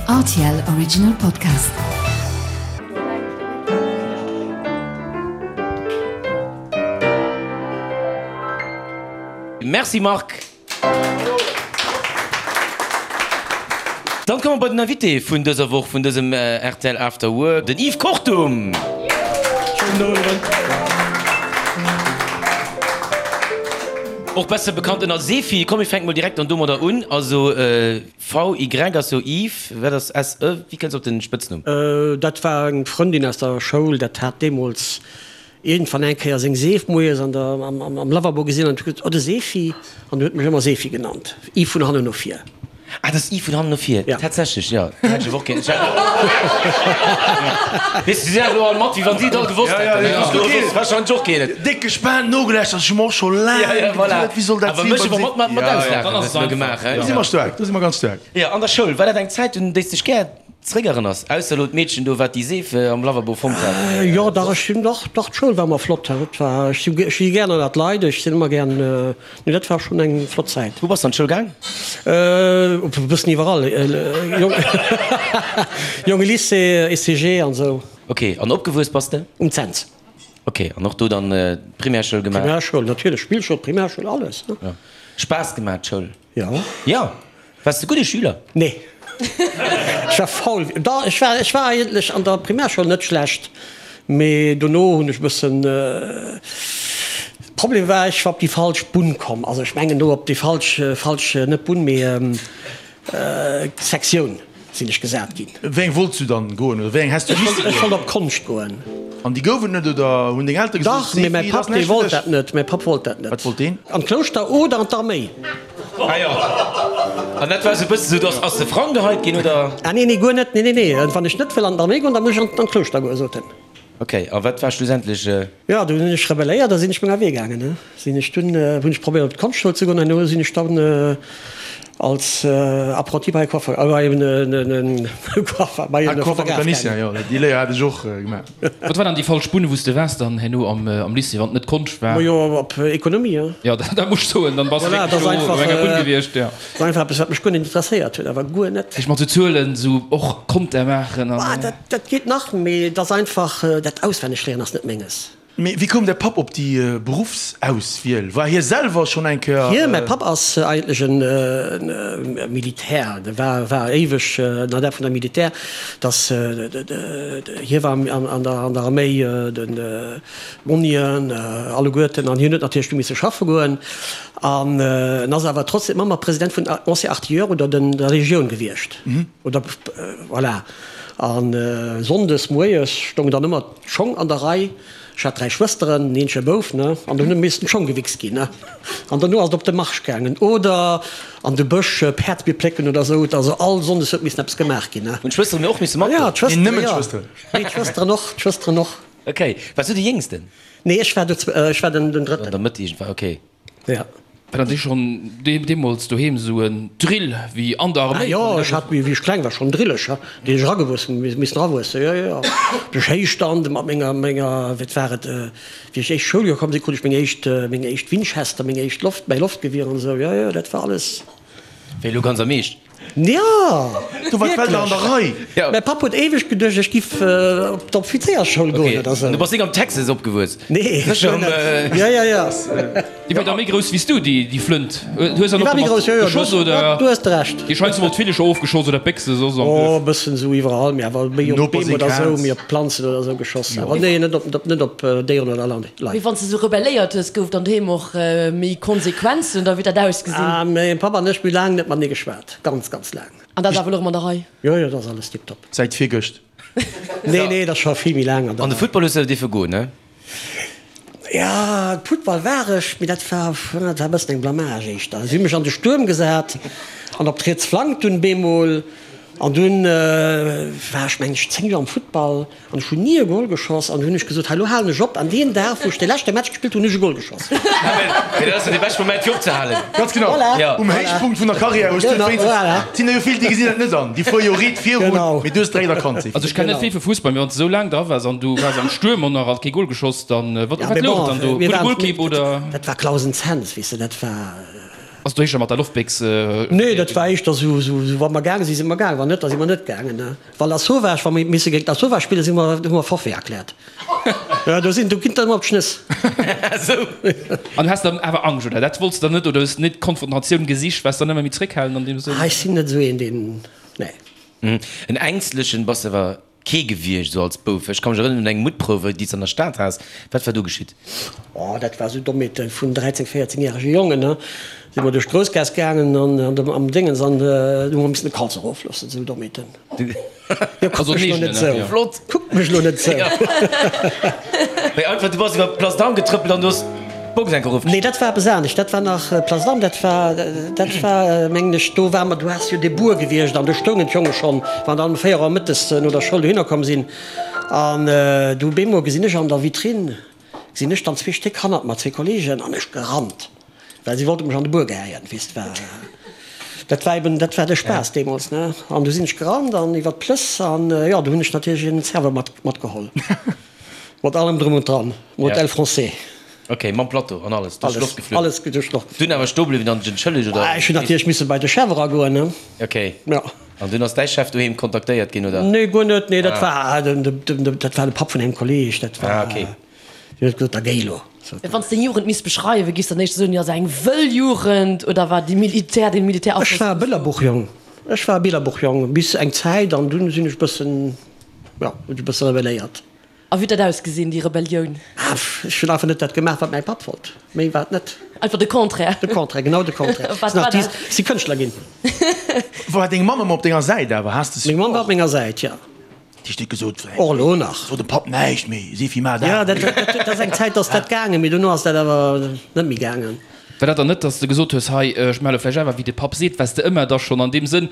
Rtl Original Podcast. Merci Marc. Dann komme mer bei den Invité vun dëser Woch, vun dësem rtl After Work, den Yves Kortum. Schéinen Owend. Och besser bekannt ënner Sefi. Komm mir fänke mol direkt dann domadder un. Also VY ass jo Yves, wat ass SE? Wéi kënns de op den Spëtznumm? Dat war eng Frëndin aus der Schoul, dat hat deemools iergendwann eng Kéier seng Seef moies an der, am Lavabo gesinn an huet gesot, Oh de Sefi! An huet mech ëmmer Sefi genannt. Yves vun hannen no vir. Ah, dat ass Yves vun hannen no vir. Ja. Tatsächlech, jo. Dat hätt ech awer och gär. Weess de, si sinn elo all mat, wéi wann si et all gewosst hätten. Ja, ja, ja. Ech warscheinlech och keen. Déck gespaant nogelauschtert, ech hu mer och scho laang Ja, ja, voilà. geduet, wéi soll dat Awer sinn mech beim awer mat, mat, mat Ja, ja. auslaachen, Dann ass hues et de elo einfach. gemaach, Do si hein? mer staark, do si mer ganz staark. Jo, an der Schoul, war dat eng Zäit, un déi s dech gär Zréckerënners, ausser elo d'Meedchen do, wat déi Seef am Lavabo fonnt hat. Jo, dach, ech sinn, dach, dach, d'Schoul war ëmmer flott. Dat war, ech si, ech si gär ënnert d'Leit, ech sinn ëmmer gär, nee, dat war schonn eng flott Zäit. Wou bass de an d'Schoul gaang? E bëssen iwwerall, Jonge Lycée, ECG an esou. Ok, an opgewuess bass de? Um Cents. Ok, an och do dann d'Primärschoul gemaach? Primärschoul, natierlech, Spillschoul, Primärschoul, alles, ne. Jo. Spaass gemaach, d'Schoul? Jo. Jo. Waars de gudde Schüler? Nee. Ech war faul. Dach, ech war, ech war eigentlech an der Primärschoul net schlecht, mee dono hunn ech e bëssen, Problem war, ech war op déi falsch Bunn komm. Also ech mengen do op déi falsch, falsch, net Bunn, mee Sektioun. Sinn ech gesat ginn. Wéi eng wollts du dann goen oder wéi eng häss du missen goen? Ech wollt op Konscht goen. An déi gouf et net oder hunn deng Eltere gesot, Dach, mee mäi Papp dee wollt dat net. Mäi Papp wollt dat net. Wat wollt deen? An d'Klouschter oder an d'Arméi. Ah jo. An dat war esou e bësse sou, dass ass de Frang geheit ginn oder? Ah nee, nee, guer net. Nee, nee, nee. Wann ech net wëll an d'Arméi goen, da muss ech an d'Klouschter goen, sot en. Ok, a wat war schlussendlech? Jo, du hunn ech rebelléiert a sinn ech menger Wee gaangen. Ne sinn ech dunn, hunn ech probéiert op d'Konschtschule ze goen an duerno sinn ech dann als Apprenti bei e Coiffeur, bei en Coiffeur, bei e Fotograf gaangen. Jo, déi Léier hat ech och gemaach. Wat war dann déi falsch Bunn, wou s de waars dann herno am Lycée, wann et net Konscht war? Majo, op Ekonomie, jo. Jo, dat muss ech soen, dann bass de Voilà, wierklech dat ass do einfach, op enger Bunn gewiescht, jo. Dat ass einfach eppes, wat mech guer net interesséiert huet, awer guer net. Ech mat sou Zuelen, sou och Konter maachen an. Dat geet nach, mee et ass einfach, dat Auswennegléieren ass net menges. Mee wéi koum däi Papp op déi Beruffsauswiel? War hie selwer schonn eng Kéier. Hie, mäi Papp ass eigentlech e Militär, de war war éiweg en Adept vun der Militär, dass hie war an der an der Arméi, den Monnien alleguerten, an hien huet natierlech du misse schaffe goen an en ass awer trotzdem ëmmer President vun Anciens Artilleurs oder den der Legioun gewiescht oder voilà. A sonndes moies stoungen dann ëmmer d'Schong an der Rei. Ech hat 3 Schwësteren, en eenzege Bouf, ne, an dunn hu missten d'Schong gewichst ginn, ne. An dono ass et op de Marsch gaangen oder an de Bësch Päerdsbier plécken oder esou. Also all sonndes huet missen eppes gemaach ginn, ne. Hunn d'Schwësteren och misse matgoen? Jo, d'Schwësteren, Nee, nëmmen jo. d'Schwësteren. Nee, d'Schwësteren och, d'Schwësteren och. Ok. Waars du de Jéngsten? Nee, ech war, ech war den Drëtten. An der Mëtt iergendwann, ok. Ja. War dat schonn deemools doheem esou en Drill wéi an der Arméi? Ah jo, ech hat, wéi ech kleng war, schonn Drillecher, déi ech eragewuess, missen erawuessen, jo, jo, jo. Duerch Héichstand mat menger, menger, wat war et, wéi ech éischt Schouljoer komm sinn, krut ech meng éischt, meng éischt Winchester, meng éischt Loft, mäi Loftgewier an esou, jo, jo, dat war alles. Wéi elo ganz am Eescht? Jo, Du war d'Welt nach an der Rei. Ja. Mäi Papp huet éiweg geduecht, ech giff op d'Offizéiersschoul goen oder sou. Du bass nik am Texas opgewuess? Nee, Sécher am. Jo, jo, jo. Déi war da méi grouss wéi s du, déi Flënt. Du hues dann Déi och war méi domat grouss, jo, jo, geschoss, oder? Du hues de Recht. Déi scheinst emol d'Villecher ofgeschoss oder d'Béchse soss am Oh, Duerf. e bëssen esou iwwerall, mee awer méi op Noper Beem seng oder sou, Kaz. méi op Planzen oder sou geschoss. Awer nee, net op, net op Déieren oder Leit. Mee wann s de sou rebelléiert hues, gouf dann doheem och méi Konsequenzen oder wéi huet dat ausgesinn? Ah, mäin Papp an ech, mir hu laang net matenee geschwat. Ganz, ganz laang. An dat ass awer elo erëm an der Rei? Jo, jo, dat ass alles tiptop. Säit virgëscht. Nee, nee, dat ass scho vill méi laang an der An de Football hues de dierfe goen, ne? Ja, Futtball war ech, mee dat war, dat war e bëssen eng Blamage éischter. Si hu mech an de Stuerm gesat an op d'riets Flank dunn bemol. An dunn war ech, meng ech, 10 Joer am Futtball an ech hunn ni e Gol geschoss. An du hunn ech gesot, hei lo halen ech op. An deen Dag, wou ech de leschte Match gespillt hunn, hunn ech e Gol geschoss. Mee dat ass jo dee beschte Moment fir opzehalen. Ganz genau. Voilà. Um Héichpunkt vun der Karriär hues du et wéinstens. Voilà. Et sinn der jo vill, déi gesinn dat net an. Déi fuere jo riit virun, Genau. mee du hues direkt erkannt, Sefi. Also ech kenn net vill vu Fussball, mee wann s de esou laang dra waars an du waars am Stuerm an nach alt kee Gol geschoss, dann wat Ja, wat mee louch bon, dann do? mir Gudde waren, Golkipp oder? dat war Clausen Cents, weess de, dat war. Ass do éischter mat der Loftbéchs? Nee, dat war éischter sou, sou wa mer gaange sinn, si mer gaangen, wann net, da si mer net gaangen. Wa Lasauvage, wa mer misse géint Lasauvage spillen, si mer, hu mer Forfait erkläert. Jo, do sinn, do ginn et ëmmer op d'Schnëss. Sou. An du has dann awer Angscht, oder? Dat wollts de dann net, oder hues net d'Konfrontatioun gesicht, waars dann ëmmer méi zréckhalend an deem Sënn? Ah, ech sinn net esou een, deen, nee. En Ängstlechen bass de awer Kee gewiescht esou als Bouf. Ech ka mech erënneren un eng Muttprouf, déi s de an der Stad has. Wat war do geschitt? Oh, dat war esou Dommheete vun 13, 14 järege Jongen, ne. Si mer duerch d'Groussgaass gaangen an an dem, am Déngens an du hu mer missen de Kalz erofloossen, esou Dommheeten. Jo, kuck mech lo net esou. Flott. Kuck mech lo net esou. Mee einfach, du bass iwwer d'Place d'Armes getrëppelt an du hues d'Box enk erofgeschnidden. Nee, dat war eppes anescht. Dat war nach Place d'Armes, dat war, dat war, mengen ech, do ware mer, do ass jo de Buer gewiescht an do stoungen d'Jonge schonn, wann dann um 4 Auer mëttes no der Schoul dohinner komm sinn. An du bemol gesinn ech an der Vitrine, gesinn ech dann zwee Stéck hannert mer, zwee Kollegen, an ech gerannt, well si wollte mech an de Buer gehäien, weess de, war, dat war eben, dat war de Spaass deemools, ne. An du sinn ech gerannt an iwwer d'Plëss an, jo, du hunn ech natierlech een Serveur mat, matgeholl. Mat allem drëm und dran, Modèle français. Ok, mam Plateau an alles duerch d'Loft geflunn? Alles duerch d'Loft geflunn. Dunn awer stoe bliwwen an dech entschëllegt, oder? Ech hunn natierlech misse bei de Chef eragoen, ne? Ok. Jo. An dunn ass däi Chef doheem kontaktéiert ginn, oder? Nee, guer net. Nee, dat war den, dat war de Papp vun engem Kolleeg, dat war. Ah, ok. Deen huet gesot, da géi elo. Wann s deng Jugend misst beschreiwen, giffs dann éischter soen, jo, se eng wëll Jugend, oder war déi Militär, dee Militärafloss? Ech war e Billerbuchjong. Ech war e Billerbuchjong bis eng Zäit an dunn sinn ech bëssen. Jo, hunn ech e bësse rebelléiert. A wéi huet dat ausgesinn, déi Rebellioun? Ah, ech hunn einfach net dat gemaach, wat mäi Papp wollt. Méi war et net. Einfach de Contraire? De Contraire, genau de Contraire. Wat war dat? Si Kënschtler ginn. War deng Mamm ëmmer op denger Säit awer? Has de Meng Mamm war op menger Säit, jo. Déi huet gesot, Och elo nach. So dem Papp näischt méi, Sefi, maach dat. Jo, dat ass eng Zäit ass dat gaangen, mee dono ass dat awer net méi gaangen. War dat dann net, dass de gesot hues, hei, ech maache lo vläicht awer wéi de Papp seet? Waars de ëmmer da schonn an deem Sënn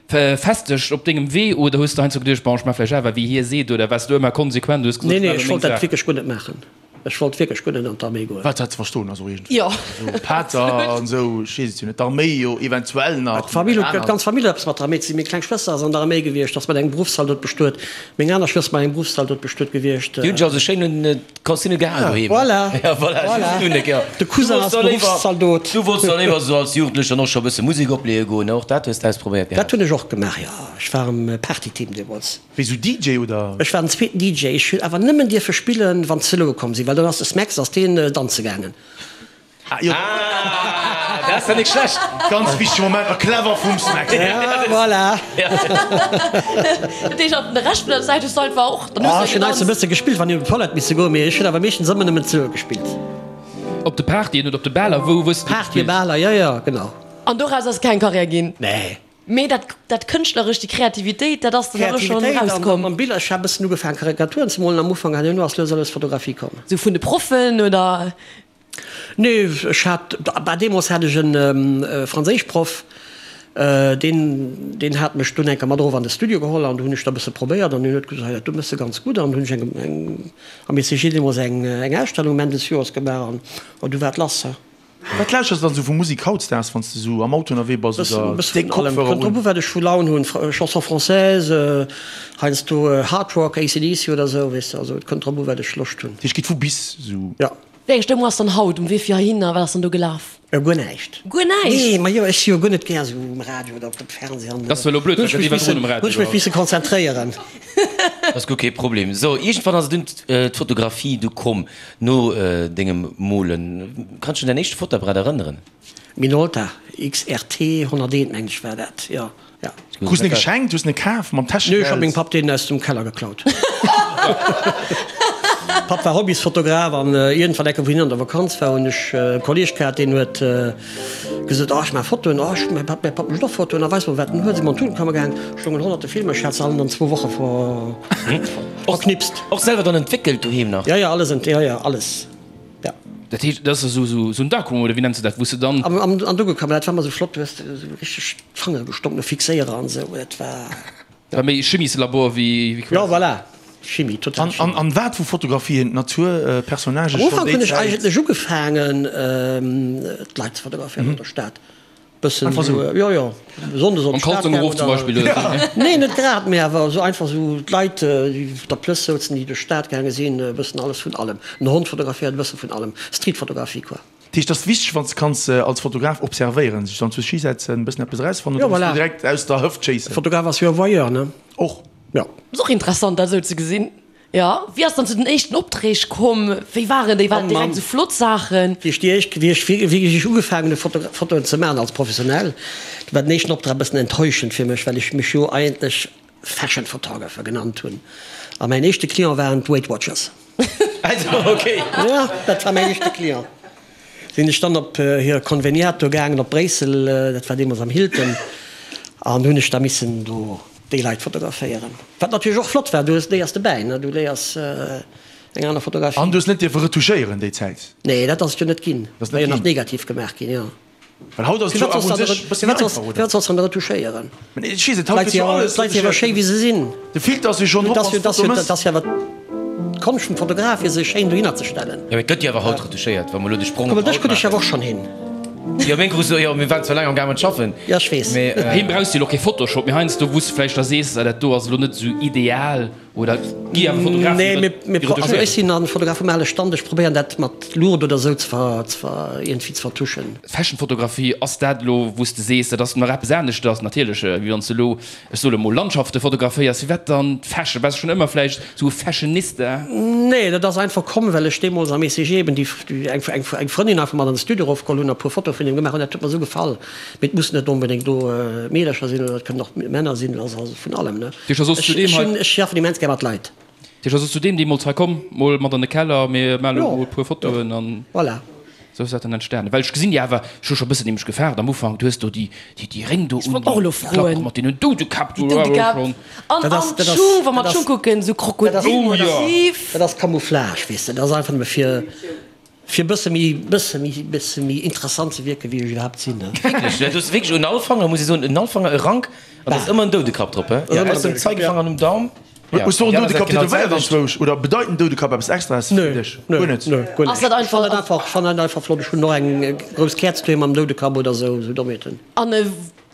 festeg op dengem Wee oder hues de heiansdo geduecht, bon, ech maache vläicht awer wéi hie seet oder waars du ëmmer konsequent, hues gesot, Nee, nee, ech wollt dat wierklech guer net maachen. Ech wollt wierklech guer net an d'Arméi goen. Wat dat ze verstoen ass och iergendwéi. Jo. Esou Pater an esou, ech weess et jo net, d'Arméi jo eventuell nach. D'Famill huet, d'ganz Famill huet eppes mat der Arméi ze dinn. Meng kleng Schwëster ass an der Arméi gewiescht, ass mat engem Beruffszaldot bestuet. Meng aner Schwëster mat engem Beruffszaldot bestuet gewiescht. Déi hunn sech also schéin un D'Consigne gehal doheem. Voilà, Ja, voilà, voilà. just un, ja. De Cousin ass Beruffszaldot. Du wollts da léiwer esou als Jugendlecher och scho e bësse Musek opleeë goen, ne? Och dat hues de ausprobéiert gehat? Dat hunn ech och gemaach, jo. Ech war am Partyteam deemools. Wéi sou DJ oder? Ech war den zweeten DJ. Ech hunn awer nëmmen dierfe spillen, wann d'Zeloe komm sinn, well dann ass de Smax, ass deen danze gaangen. Ah, jo. Ah, dat ass ja nik schlecht. Ganz wichtege Moment a clever vum Smax. Ja, voilà. Dat heescht, an de Rescht vun der Zäit hues du einfach och dann hues Oh, du ech hunn heiansdo e gedanzt. bësse gespillt, wann ech op d'Toilette misse goen, mee ech hunn awer meeschtens ëmmer nëmmen d'Zeloe gespillt. Op de Partyen oder op de Baler, wou hues du Partyen, gespillt? Baler, jo, jo, genau. An doraus ass keng Karriär ginn? Nee. Mee dat, dat Kënschtlerescht, déi Kreativitéit, dat ass dann awer schonn Kreativitéit an erauskomm. mam Biller. Ech hat e bëssen ugefaangen Karikaturen ze molen am Ufank an duerno ass lues a lues Fotografie komm. Sou vun de Proffen oder? Nee, ech hat, bah deemools hat ech e Franséischproff, deen, deen hat mech dunn eng Kéier mat erof an de Studio geholl an do hunn ech da e bësse probéiert an hien huet gesot, hei dat do méchs de ganz gutt an hunn ech eng, eng am ECG deemools eng, eng Ausstellung um Enn des Joers gemaach an du war et lass. Wat lauschters de dann esou vu Musik hautdesdaags, wann s de esou am Auto ënnerwee bass oder Bëssen déck vun allem. Kopfhörer Kënnt drop un? u wat ech vu Laun hunn. Chanson française, heiansdo Hard Rock, AC/DC oder esou, weess de. Also et kënnt drop u wat ech Loscht hunn. Dat heescht, geet vu bis esou? Jo. Wéi eng Stëmmung ass dann haut um Wee fir heihinner? Wat ass dann do gelaf? Guer näischt. Guer näischt? Nee, ma jo, ech si jo guer net gär esou um Radio oder op dem Fernseh an. Dat ass zwar elo blöd, well Hunn ech dat mech iwwerdroen missen, um hunn Radio ech mech war. misse konzentréieren. Dat ass guer kee Problem. So, iergendwann ass et dunn d'Fotografie du komm. No dengem Molen, kanns du dech un däin éischte Fotoapparat erënneren? Minolta XRT 101 mengen ech war dat, jo, jo. Krus en geschenkt, hues en kaf mam Nee, ech Täschegeld? hat mengem Papp deen aus dem Keller geklaut. Papp war Hobbysfotograf an iergendwann eng Kéier wou hien an der Vakanz war hunn ech e Kolleeg gehat deen huet gesot, oh ech maache Fotoen, oh ech, mäi Papp, mäi Papp mécht och Fotoen, a weis mol wat en huet. Si mer an d'Tutenkammer gaang, stoungen honnerte Filmer, ech hat se allen an zwou Woche ver. Verknipst. Och selwer dann entwéckelt doheem nach? Ja, ja, alles, ja, ja, alles, ja. Dat heescht, dat ass esou, esou en Darkroom oder wéi nenns de dat, wou s de dann. Am, am, an Dunkelkammer, dat war ëmmer esou flott, du hues esou richteg d'Fangere gestonk no Fixéierer an esou, dat war. War méi Chimieslabor wéi, wéi quasi. Ja, voilà, Chimie, total An, an, Chimie. an wat vu Fotografien, Natur, Personnagen, Am schonn Ufank déi hunn ech Zäit? eigentlech ugefaangen, d'Leit ze fotograféieren an der Stad. Bëssen Einfach esou, sou. jo, jo, Sonndes op Mam d'Stad Kalzong gaangen erof zum oder. Beispill oder sou, ne? Nee, net grad, mee awer esou einfach esou d'Leit, déi op der Plëss souzen, déi duerch d'Stad gaange sinn, e bëssen alles vun allem. En Hond fotograféiert, e bësse vun allem. Streetfotografie, quoi. Dat heescht, et ass wichteg, wann s de kanns als Fotograf observéieren, sech dann zu Ski setzen, e bëssen eppes erausfannen, Jo, oder muss voilà. du direkt aus der Hëft schéissen? Fotograf ass jo e Voyeur, ne? Och. Jo. Ass och interessant, dat esou ze gesinn. Jo. Wéi ass dann zu den éischten Opträg komm? Wéi waren déi? Waren et Oh Mann. direkt esou flott Saachen? Wéi ech déi éischt, wéi ech wierklech ugefaangen hu Foto, Fotoen ze maachen als Professionell, do war den éischten Optrag e bëssen enttäuschend fir mech, well ech mech jo eigentlech Fashion Photographer genannt hunn. A mäin éischte Client waren d'Weight Watchers. Also, okay. Jo, dat war mäin éischte Client. Sinn ech dann op hir Konveniat do gaangen op Bréissel, dat war deemools am Hilton, an hunn ech da missen do déi Leit fotograféieren. Wat natierlech och flott war, du hues, léiers dobäi, ne, du léiers eng aner Fotografie. An du hues net dierfe retouchéieren déi Zäit? Nee, dat ass et jo net ginn. Dat ass War net jo nach ginn. negativ gemaach ginn, jo. Well haut ass et jo Firwat awer solls un de sech e bësse méi firwat solls einfach, oder? firwat solls de dann retouchéieren? Mä ech weess net, haut D'Leit gëtt si jo jo alles d'Leit si awer retouchéiert. schéi wéi se sinn. De Filter ass jo schonn drop, Dat ass wann jo s de dat ass d'Foto jo mëss. dat ass jo awer d'Konscht vum Fotograf, fir sech schéin dohinner ze stellen. Jo, mee et gëtt jo awer haut retouchéiert, wa mer elo de Sprong Kuck op mol, dech haut krut ech awer maachen. och schonn hin. Jo, meng krus du, jo, mir waren zwar laang am gaangen schaffen, Jo, ech weess. mee. Heem brauchs de jo elo kee Photoshop, mee heiansdo wou s de vläicht da sees, ah dat do ass elo net esou ideal. Oder gi awer Fotografen, Nee, déi mir, mir, also ech retouchéieren? sinn an Fotograf vum ale Stand, ech probéieren dat mat Luucht oder esou ze ver, ze ver, iergendwéi ze vertuschen. Fashionfotografie, ass dat elo wou s de sees, dat ass nach eppes aneschters natierlech, wéi wann s de elo, ech soe mol, Landschafte fotograféiers? Firwat dann Fashion? Bass de schonn ëmmer vläicht esou e Fashionista? Nee, dat ass einfach komm, well ech deemools am ECG eben déi, eng, eng, eng Frëndin einfach mat an de Studio erofgeholl hunn a puer Fotoe vun him gemaach hunn. Dat huet mer esou gefall. Mee et mussen net onbedéngt do Meedercher sinn oder et kënnen och Männer sinn, also vun allem, ne. Tisch ass zu deem hei. Ech schaffen immens gär mat Leit. Tisch ass zu deem deemools hei komm, mol mat an de Keller, mir male mol e puer Fotoen an. Voilà. Sou ass dat dann entstanen. Well ech gesinn déi awer, ech hu scho bëssen nämlech gefaart am Ufank, du hues do déi, déi, déi Réng do un, och elo déi Klack froen. mat deenen Doudekapp do, Déi Doudekapp. schon. An, Dat ass, an dat ass, d'Schung, wa mer dat d'Schung ass, kucken, sou dat ass, Krokodilmotiv. dat ass Camouflage, weess de, dat ass einfach nëmme fir. Fir bësse méi, bësse méi, bësse méi interessant ze wierken, wéi ech iwwerhaapt sinn, ne? Wierklech, du hues wierklech un all Fanger, muss ech soen, un all Fanger e Rank, an da ass ëmmer en Doudekapp drop, he? Ass ëmmer Ausser en dem Zeigefanger an dem Daum. Ja, Hues du och en déi aner Säit Doudekapp genau tätowéiert d'selwecht. anzwousch? Oder bedeit en Doudekapp eppes Extraes Nö, fir dech? nö, Guer net? nö, guer Ass net. dat Ech einfach, fannen dat einfach, ech fannen dat einfach flott. Ech hunn och eng grouss Käerz doheem mam Doudekapp oder esou, esou Dommheeten. An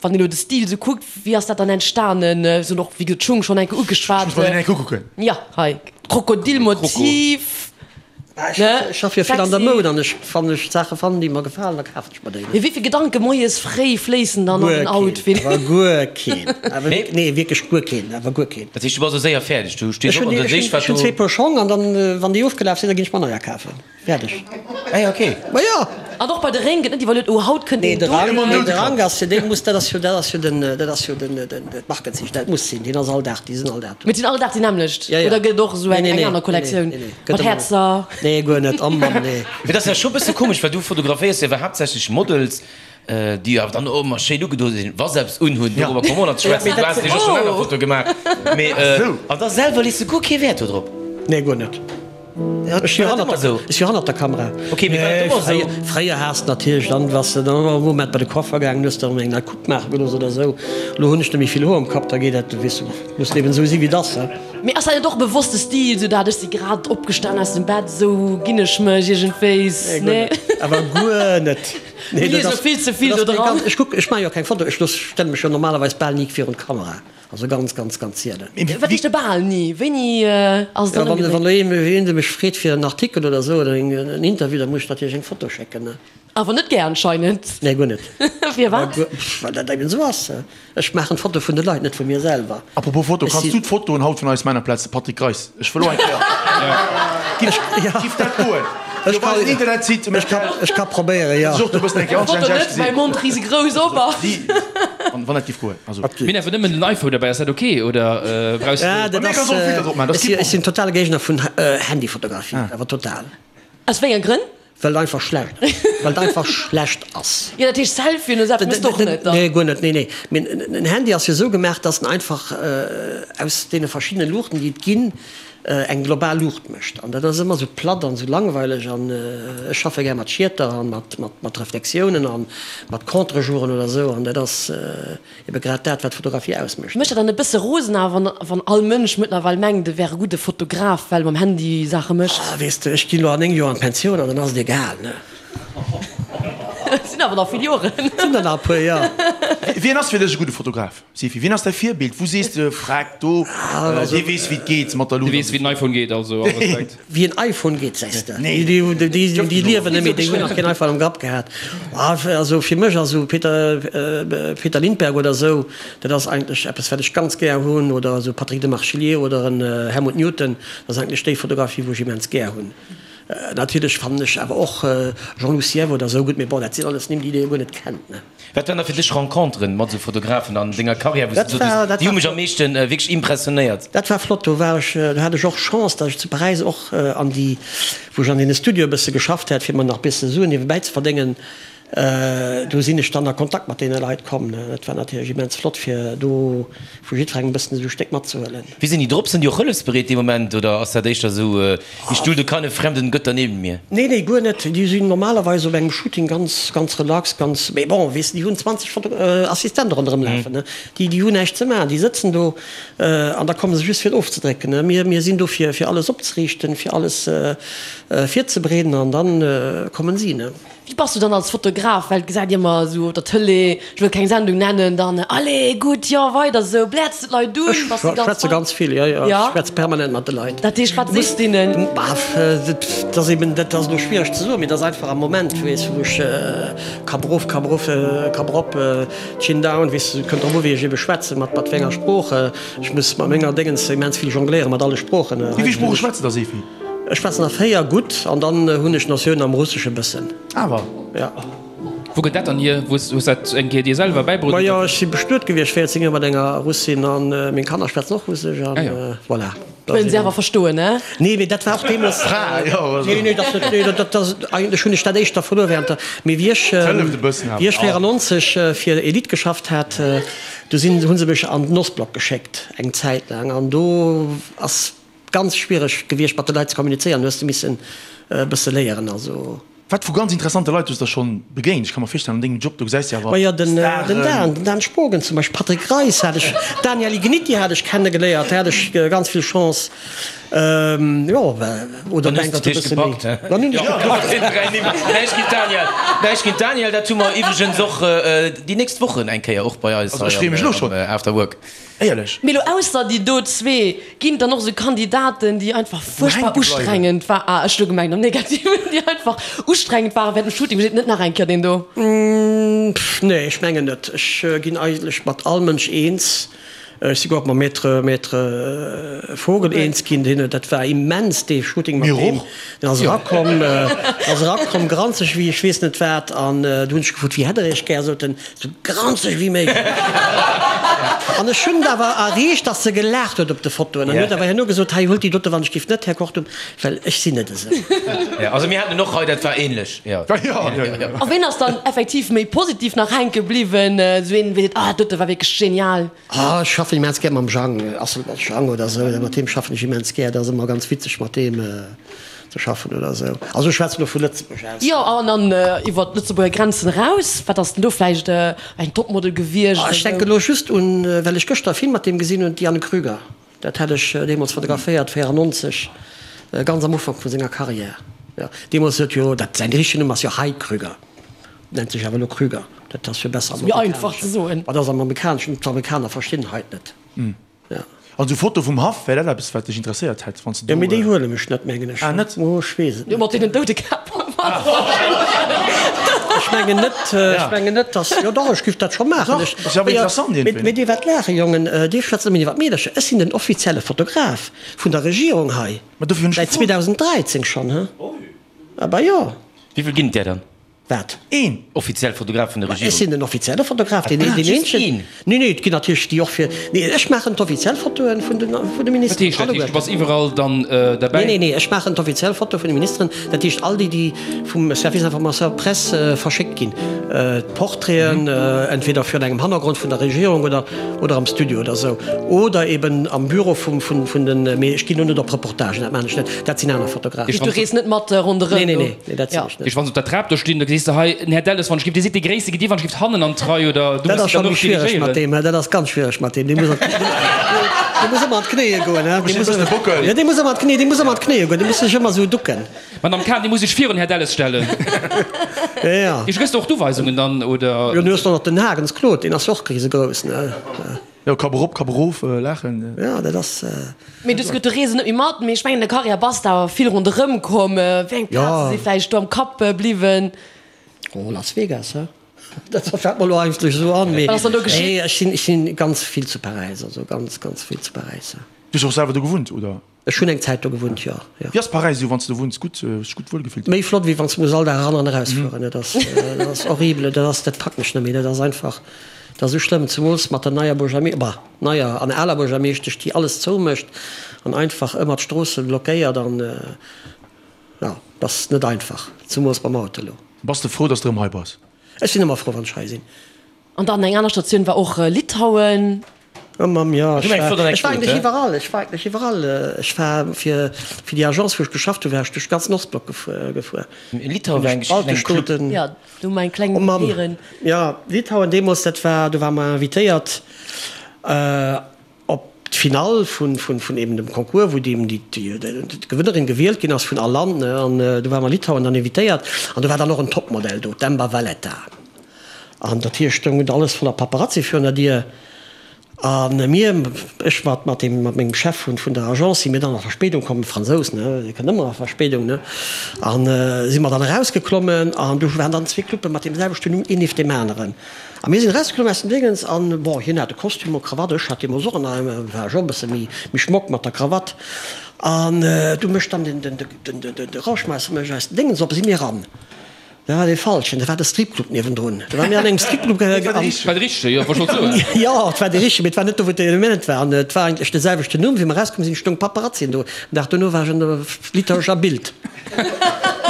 wann een elo de Stil esou kuckt, wéi ass dat dann entstanen? Ech hunn och, wéi gesot, d'Schung schonn eng Kéier Ech ugeschwat. muss mer deen eng Kéier ukucken. Ja, hei, Krokodilmotiv. Ech schaffe jo vill an der Moud an ech, wann ech Saache fannen, déi mer gefalen, da kafen ech mer déi. Mee wéi vill Gedanke moies fréi fléissen dann an den Outfit? Guer keen, awer guer keen, awer wierk, nee wierklech guer keen, awer guer keen. Dat heescht, du bass och séier fäerdeg, du stees Ech op hunn, an da ech sees hunn, wat ech hunn du. zwee Puer Schong an dann, wann déi ofgelaf sinn, da ginn ech mer neier kafen. Fäerdeg. Ah ja, okay. Ma jo! An och bei de Réng gëtt net iwwerluet, oh haut kënnt Nee, een de do. Rang, nee, de Rang ass jo, dee muss, dat ass jo, dat ass jo den, dat ass jo den, den, d'Markenzeechen, dat muss sinn, deen ass all Dag, déi sinn all Dag do. Mee et sinn all Dag déi nämmlecht? Ja, ja. Oder gëtt et och esou Nee, eng, nee, eng nee, aner nee, Kollektioun nee, nee, gëtt mat ëmmer. Häerzer? Nee, guer net, oh Mann, nee. Mee dat ass ja scho bësse komesch, well du fotograféiers jo awer haaptsächlech Models, déi awer dann och ëmmer schéin ugedo sinn, wa se eppes unhunn, dorobber komme mer och nach ze schwätzen, du has nämlech och schonn aner Fotoe gemaach, mee an da selwer lees de guer kee Wäert do drop. Nee, guer net. Ech si hannert der Kamera. Fréier has de natierlech dann, waars de dann e Moment bei de Coiffer gaangen, hues der eng nei Coupe maache gelooss oder esou. Elo hunn ech net méi vill Hoer um Kapp, da geet dat, weess de, muss eben esou si wéi et ass. Mee ass dat net och e bewosste Stil, esou dat ech si grad opgestan aus dem Bett, esou ginn ech mech iergendwéis? Nee, guer net. Awer guer net. Mir liese vill ze vill do dran. Ech kuck, ech maache jo keng Foto, ech looss, stelle mech jo normalerweis bal ni virun d'Kamera. Also ganz, ganz, ganz sielen. Wat heescht bal ni? Wéini ass et dann ëmgedréit? Wann elo een mech freet fir en Artikel oder esou oder en Interview, da muss ech natierlech eng Foto schécken, ne? Awer net gär anscheinend. Nee, guer net. Firwat? Well dat eben esou ass. Ech maachen d'Foto vun de Leit, net vu mir selwer. Apropos Foto, Ech kanns si. du d'Fotoen haut vun eis Männerplaz, de Patrick Greis, ech wëll och eng Kéier. Giff, giff dat goen? Ech Op eisen Internetsite, Ech ka, ech ka probéieren, jo. Ech och do bëssen eng Kéier Foto anständig net, ausgesinn. mäi Mond risegrouss op ass. Wann dat giff goen, also. Mir hunn awer nëmmen den iPhone derbäi, ass dat ok oder brauchs Ja, du. dat Mir ass, kanns och Filter drop maachen, dat ass ech si, kee ech sinn Problem. totale Géigner vun Handyfotografie, awer total. Aus wéi enge Grënn? Well et einfach schlecht, well et einfach schlecht ass. Jo, dat heescht Selfien oder sou eppes méchs de och net dann? Nee, guer net, nee, nee. Mee en Handy ass jo esou gemaach, dass en einfach aus deene verschiddene Luuchten, déi et ginn, eng global Luucht mécht. An dat ass ëmmer esou platt an esou langweileg. An ech schaffe gär mat Schieter an mat, mat, mat Reflexiounen an mat Contre-jouren oder esou. An dat ass ebe grad dat, wat Fotografie ausmécht. Mécht dat dann e bësse rosen awer, wann, wann all Mënsch mëttlerweil mengt, e wär e gudde Fotograf, well e mam Handy Saache mécht? Ah, weess de, ech ginn elo an 9 Joer an d'Pensioun an dann ass et egal, ne? Et sinn awer nach vill Joren. Et sinn der nach e puer, jo. Wien ass fir dech e gudde Fotograf, Sifi? Wien ass däi Virbild? Wou sees de, Freck, do, dee weess wéi et geet mat der Luut? Dee weess wéi den iPhone geet, also all Respekt. Wéi en iPhone geet, sees de? Déi liewen net méi, déi hunn nach keen iPhone am Grapp gehat. Also fir mech ass esou Peter, Peter Lindbergh oder esou, dat ass eigentlech eppes wat ech ganz gär hunn, oder esou Patrick Demarchelier oder en Helmut Newton, dat ass eigentlech déi Fotografie wou ech immens gär hunn. Natierlech fannen ech awer och Jean-Loup Sièvre oder esou gutt, mee bon, dat sinn alles Nimm, déi Dir jo guer net kennt, ne? Wat waren da fir dech Renconteren mat esou Fotografen an denger Karriär, wou s du gesot hues, déi hu mech am meeschten wierklech impressionéiert? Dat war flott, do war ech, do hat ech och Chance, datt ech zu Paräis och an déi, wou ech an deene Studioe bësse geschafft hat, fir mer nach bësse Suen niewebäi ze verdéngen, do sinn ech dann a Kontakt mat deene Leit komm. Dat war natierlech immens flott, fir do vu jiddwerengem e bëssen esou e Stéck matzehuelen. Wéi sinn déi drop? Sinn déi och hëllefsbereet dee Moment oder ass dat éischter esou, Ich dulde keine fremden Götter neben mir? Nee, nee, guer net. Déi sinn normalerweis op engem Shooting ganz, ganz relax, ganz, mee bon, weess de, déi hunn 20 Foto, Assistente ronderëm lafen, ne. Déi, déi hunn näischt ze maachen, déi sëtzen do an da komme se just fir et ofzedrécken, ne. Mir, mir sinn do fir, fir alles opzeriichten, fir alles virzebereeden an dann kommen si, ne. Wéi bass du dann als Fotograf, well et gesäit ëmmer esou op der Tëlee, ech wëll keng Sendung nennen, dann allez gutt, jo weider esou, bläerts du d'Leit un, Ech bass du ganz schwätze fein? ganz vill, jo jo, ech schwätze permanent mat de Leit. Dat heescht, wat sees du deenen? Dat ass eben, dat ass elo schwiereg ze soen, mee dat ass einfach am Moment, weess, wou ech Kapp erof, Kapp erof, Kapp erop, Chin down, weess, et kënnt drop u wéi ech ebe schwätzen, mat mat wéi enger Sprooch. Ech muss mat menger Déngens immens vill jongléieren, mat alle Sproochen. Wéi vill Sprooche schwätz de da, Sefi? Ech schwätzen der 4 gutt an dann hunn ech Notiounen am Russesche bëssen. Awer? Ja. Wou gëtt dat dann hier? Wou hues dat eng Kéier dir selwer bäibruet? Majo, ech si bestuet gewiescht 14 Joer mat enger Russin an meng Kanner schwätzen och Russesch an voilà. Wëllen se awer verstoen, ne? Nee, mee dat war och deemools. Fra, jo. Nee, nee, dat net, nee, dat ass eigentlech hunn ech dat éischter verluer während der, mee wéi ech, wéi ech 94 fir Elite geschafft hat, du sinn, hu se mech an den Ostblock geschéckt eng Zäit laang an do ass Ganz schwiereg gewiescht mat de Leit ze kommunizéieren, hues de missen e bësse léieren also. Wat vu ganz interessante Leit hues der schonn begéint? Ech ka mer virstellen an dengem Job do gesäis de awer Majo den den Dan, den Dan Spogen zum Beispill, Patrick Reis hat ech, Daniel Igniti hat ech kenne geléiert, do hat ech ganz vill Chance, jo oder Dann hues de dech gepackt he? Dann hunn ech gepackt. Näischt géint Daniel, näischt géint Daniel, dat hu mer iwwregens och déi nächst Wochen eng Kéier och bei eis Also ech freeë mech elo schonn. am After Work. Éierlech. Mee lo ausser déi do zwee, ginn et dann och esou Kandidaten, déi einfach fuerchtbar ustrengend war, ah ech hu gemengt am Negativen, déi einfach ustrengend waren während dem Shooting, wou seet net nach eng Kéier deen do? Pff nee, ech mengen net. Ech ginn eigentlech mat all Mënsch eens. Ech si guer och mam Maître, Maître Vogel eens ginn, deen, dat war immens dee Shooting mat deem. Deen ass erakomm, ass erakomm granzeg wéi ech weess net wat an du hunn ech gefrot, wéi hätt der iech gär, sot en, Sou granzeg wéi méiglech. An ech hunn et awer erreecht, dass se gelaacht huet op de Fotoen. An huet awer herno gesot, Hei, huelt déi dote wann ech giff net, Här Kortum, well ech sinn net esou. Jo, also mir haten en och hei, dat war ähnlech, jo. A ween ass dann effektiv méi positiv nach hänke bliwwen? Sou een, wee seet, Ah, dat dote war wierklech genial. Ah, ech schaffen immens gär mam Jang, Asselborn Jang oder esou, mat deem schaffen ech immens gär, dat ass ëmmer ganz witzeg mat deem. Ze schaffen oder esou. Also ech schwätzen elo vu Lëtzebuerg aus. Jo, an dann iwwer d'Lëtzebuerger Grenzen eraus, wat ass denn do vläicht eng Topmodel gewiescht oder esou? Ech denken elo just un, well ech gëschter e Film mat deem gesinn hunn, d'Diane Krüger. Dat hat ech deemools fotograféiert, 94, ganz am Ufank vu senger Carrière. Jo, deemools huet jo, dat säin richtegen Numm ass jo Hai Krüger, nennt sech awer elo Krüger, dat ass jo besser am Méi einfach ze soen. Ma dat ass am Amerikaneschen, d'Amerikaner verstinn Heit net. Ja. Also Foto vum Haff, wär dat eppes wat dech interesséiert hätt wanns de do. Jo mee déi huelen ech net mengen ech. Ah net? Oh ech weess et net. Jo mat deenen Doudekäpp. Ech mengen net, ech mengen net dass, jo dach ech giff dat scho maachen. Dach, ass jo awer interessant iergendwéi. Mee dir waart laachen Jongen, dir schwätzt ëmmer iwwer d'Meedercher. Ech sinn den offizielle Fotograf vun der Regierung hei, Ma dofir hunn ech säit gefrot. 2013 schonn, he? Ah bah jo. Wéivill ginn et där dann? Wat? Een! Offiziell Fotograf vun der Regierung. Ech sinn den offizielle Fotograf, deen Ah, just eenzegen. een? Nee, nee, et ginn natierlech déi och fir. Nee, ech maachen d'offiziell Fotoe vun de, vun de Wat Ministeren. heescht dat? Heescht, du bass iwwerall dann derbäi? Nee, nee, nee, ech maachen d'offiziell Foto vun de Ministeren. Dat heescht all déi, déi vum Service Information Presse verschéckt ginn. D'Portraiten, entweder virun engem Hannergrond vun der Regierung oder, oder am Studio oder esou. Oder eben am Büro vum, vun, vun den. Mee ech ginn do net op Reportagen, dat maachen ech net. Dat sinn aner Fotografen. Du rees net mat ronderëm? Nee, nee, nee, nee, dat sinn ech net. Heescht, wann se op der Trap do stinn, da gesäis. Sees de hei, den Här Delles, wann ech giff, Dir sidd dee Gréisste, gitt Dir wann ech giff hannen an d'Rei oder du Dat muss ass scho dann méi och schwiereg mat dirigéieren? deem, dat ass ganz schwiereg mat deem. Dee muss an, dee muss ëmmer an d'Knéie goen, he. Dee muss, jo, dee muss ëmmer an d'Knéie, dee muss ëmmer an d'Knéie goen, dee muss sech ëmmer esou ducken. Madame Cahen, Dir muss sech virun Här Delles stellen. Jo, jo. Iech gëss de och d'Uweisungen dann, oder? Jo, du hues och nach den Hagens Claude, deen ass jo och risegrouss, ne. Jo, Kapp erop, Kapp erof, laachen. Jo, dat ass. Mee du hues gesot, du rees net méi mat, mee ech mengen, an der Karriär bass de awer vill ronderëm komm. Wéi eng Plaze si vläicht do am Kapp bliwwen? Oh, Las Vegas, he? Dat fält mer elo eigentlech esou an, mee Wat ass dann do geschitt? nee, ech sinn, ech sinn ganz vill zu Paräis, also ganz, ganz vill zu Paräis, ja. Du hues och selwer do gewunnt, oder? Ech hunn eng Zäit do gewunnt, jo, jo. Wéi ass Paräis esou, wann s de do wunns? Gutt, hues dech gutt wuel gefillt? Méi flott, wéi wann s de muss all Dag eran an erausfueren. Dat ass, dat ass horrible, dat ass, dat packen ech net méi. Dat ass einfach, dat ass esou schlëmm, zemools mat der neier Buergermee-, bah, neier an aler Buergermeeschtesch, déi alles zoumécht an einfach ëmmer d'Stroosse blockéiert an, jo, dat ass net einfach, zemools mam Auto elo. Bass de frou, dass de erëm hei bass? Ech sinn ëmmer frou, wann ech hei sinn. An dann eng aner Statioun war och Litauen. Oh Mamm, jo, ech Du eng war, flott ech war Anekdot, eigentlech he? iwwerall, ech war eigentlech iwwerall. Ech war fir, fir déi Agence, wou ech geschafft hunn, war ech duerch de ganzen Ostblock gefuer. Litauen war eng Geschicht an engem Club. Balteschstooten. Jo, do hu mer eng kleng Oh Mamm, héieren. jo, Litauen deemools, dat war, do ware mer invitéiert op d'Finall vun, vun, vun eben dem Concours, wou déi, déi, déi, d'Gewënnerin gewielt ginn ass vun all Land, ne, an do ware mer Litauen dann invitéiert an do war dann och en Topmodell do, d'Amber Valletta. An dat heescht, stoung alles voller Paparazzi virun der Dier. A mir, ech mat mat deem, mat mengem Chef vun vun der Agence, si mir dann a Verspéidung komm, Fransous, ne, dee kënnt ëmmer a Verspéidung, ne, a si mer dann erausgeklommen an do waren dann zwee Cluppe mat deem selwechten Numm, een nieft deem aneren. A mir sinn erausgeklommen aus dem Déngens an, bon, hien hat e Kostüm, e Krawatt, ech hat deemools och en, war ech och e bësse méi méi schmock mat der Krawatt. An du mécht dann den den den de Rauschmeisser mécht eis den Déngens op, si mir eran. Dat war dee falschen, dat war de Stripclub niewendrun. Do ware mir an engem Stripclub. Dat war de richtege, jo, wollt schonn soen. Jo, et war dee richtege, mee et war net do, wou d'Element war. An et war eigentlech de selwechten Numm. Wéi mer erauskomm sinn, stoung Paparazzien do. Den Dag dono war ech an der litauescher Bild.